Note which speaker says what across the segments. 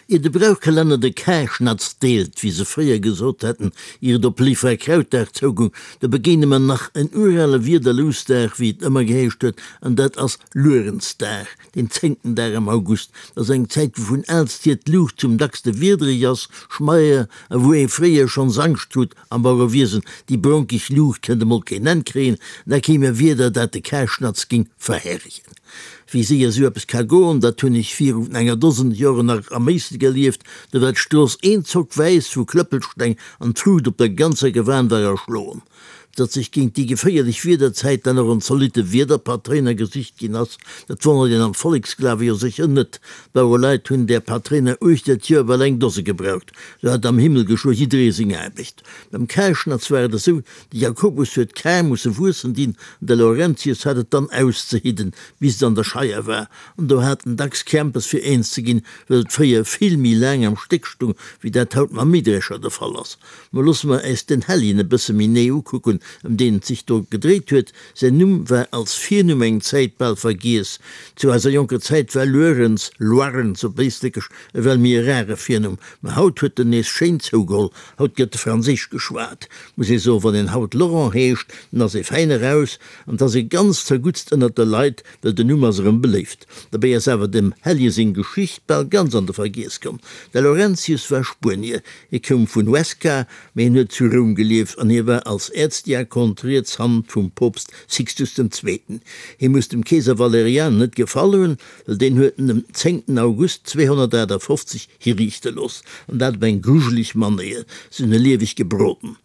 Speaker 1: Ier de Brauchkalenner de Karschnatz deelt, wéi se fréier gesot hätten, ier et op Léiffrawkrautdag zougung, do begéine mer nach en urale Wiederlousdag, wéi et ëmmer geheescht huet, an dat ass Luerenzdag, deen zéngten Dag am August. Dat ass eng Zäit, wou vun aalst hier d'Luucht zum dackste wiedereg ass, schmeier, a wou ee fréier schonns Angscht krut, Am Bauerewiesen, déi bronkeg Luucht kënnt emol keen Enn kréien, da kéim e Wieder, dat de Karschnatz géing verherregen. Wéi séier esou eppes ka goen, dat hunn ech virun enger Dosen Joren nach am Méissel erlieft, do war d'Strooss eenzock wäiss vu Klëppelsteng an d'Fruucht op der ganzer Gewan war erschloen. Datt sech géint déi geféierlech Wiederzäit dann och en zolitte Wiederpatréiner gesicht ginn ass, dat wonnert een am Volleksglawe jo sécher net. D'Bauereleit hunn där Patréiner uechter d'Joer bal eng Dose gebraucht. Sou hat am Himmel geschwë jidderee seng Aarbecht. Beim Karschnatz war et esou, de Jakobus huet d'Kar musse wuessen dinn an de Laurentius hat et dann auszehidden, bis et an der Scheier war. An do hat en dacks Krämpes fir eens ze ginn, well et fréier vill méi laang am Stéck stung, wéi dat haut mam Mähdrescher de Fall ass. Mo loosse mer äis den Helljen e bësse méi nee ukucken, ëm deen et sech do gedréit huet. Säin Numm war als Virnumm eng Zäit bal vergiess. Zu eiser jonker Zäit war Luerens, Loirens op Éistréckesch, ewell méi e rare Virnumm, mä haut huet en nees schéin zougeholl. Haut gëtt Franséisch geschwat, muss ee soen. Wann een haut Laurent heescht, dann ass ee fäin eraus an 't ass ee ganz zerguttst ënnert de Leit, well den Numm ass erëm beléift. Dobäi ass awer dem Hellje seng Geschicht bal ganz an de Vergiess komm. De Laurentius war Spuenier, hie koum vun Huesca, Mee hien huet zu Roum gelieft an hie war als Äerzdiakon d'riets Hand vum Poopst Sixtus den Zweeten. Hie muss dem Keeser Valerian net gefall hunn, well deen huet en dem zéngten August 258 hiriichte looss, an dat op eng grujeleg Manéier, se hunn e lieweg gebroden.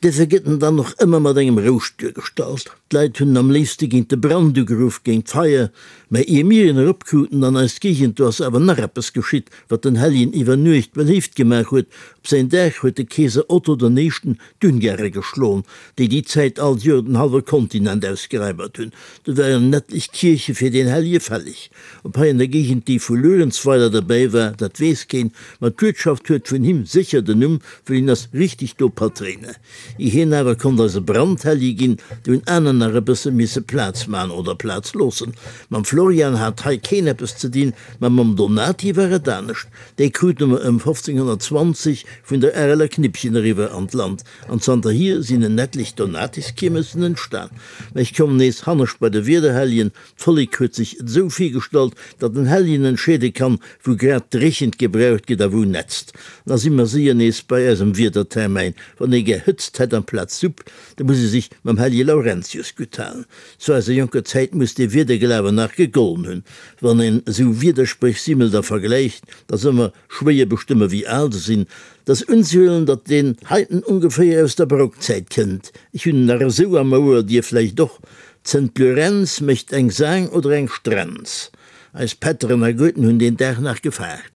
Speaker 1: Dofir gëtt en dann och ëmmer mat engem Rouscht duergestallt. D'Leit hunn en am léifste géint de Brand ugeruff, géint d'Feier. Mä ier mir en eropkruten an eis Géigend, do ass awer nach eppes geschitt, wat den Helljen iwwer Nuecht beléift gemaach huet, Op säin Dag huet de Keeser Otto den Éischten d'Ungare geschloen, déi déi Zäit all Joer den hallwe Kontinent ausgeraibert hunn. Do waren en etlech Kierche fir deen Hellje fälleg. Ob hei an der Géigend déi vu Luerenzweiler derbäi war, dat weess keen, ma d'Uertschaft huet vun him sécher den Numm, well hien ass richteg do Patréiner. Ier hien awer konnt eise Brandhellje ginn, do hunn aner nach e bësse misse Plaz man oder Plaz loossen. Mam Florian hat hei keen eppes ze dinn, ma mam Donati war et anescht. Déi krute mer ëm 1520 vun der Areler Knippchen eriwwer an d'Land, an zanterhier sinn en etlech Donatiskiermessen entstan. Mä ech kommen nees hannescht bei de Wiederhelljen, D'Vollek huet sech et esou virgestallt, datt en Helljen entscheede kann, wou grad d'Dréchent gebraucht gëtt a wou nätzt. Da si mer séier nees bei eisem Wiedertermäin, Wann ee gär Hëtzt hätt amplaz Supp, da muss ee sech mam Hellje Laurentius gutt halen. Zu eiser jonker Zäit muss dee Wiederglawen nach gegollen hunn. Wann een esou Wiederspréch simmelt a vergläicht, da ass ëmmer schwéier bestëmme wéi al se sinn. 't ass unzehuelen, datt deen heiten ongeféier aus der Barockzäit kënnt. Ech hunn en nach esou am Ouer, dir vläicht och. D'Sënt Lurenz mécht eng Saang oder eng Strenz. Eis Pätteren a Goeten hunn deen Dag nach gefaart.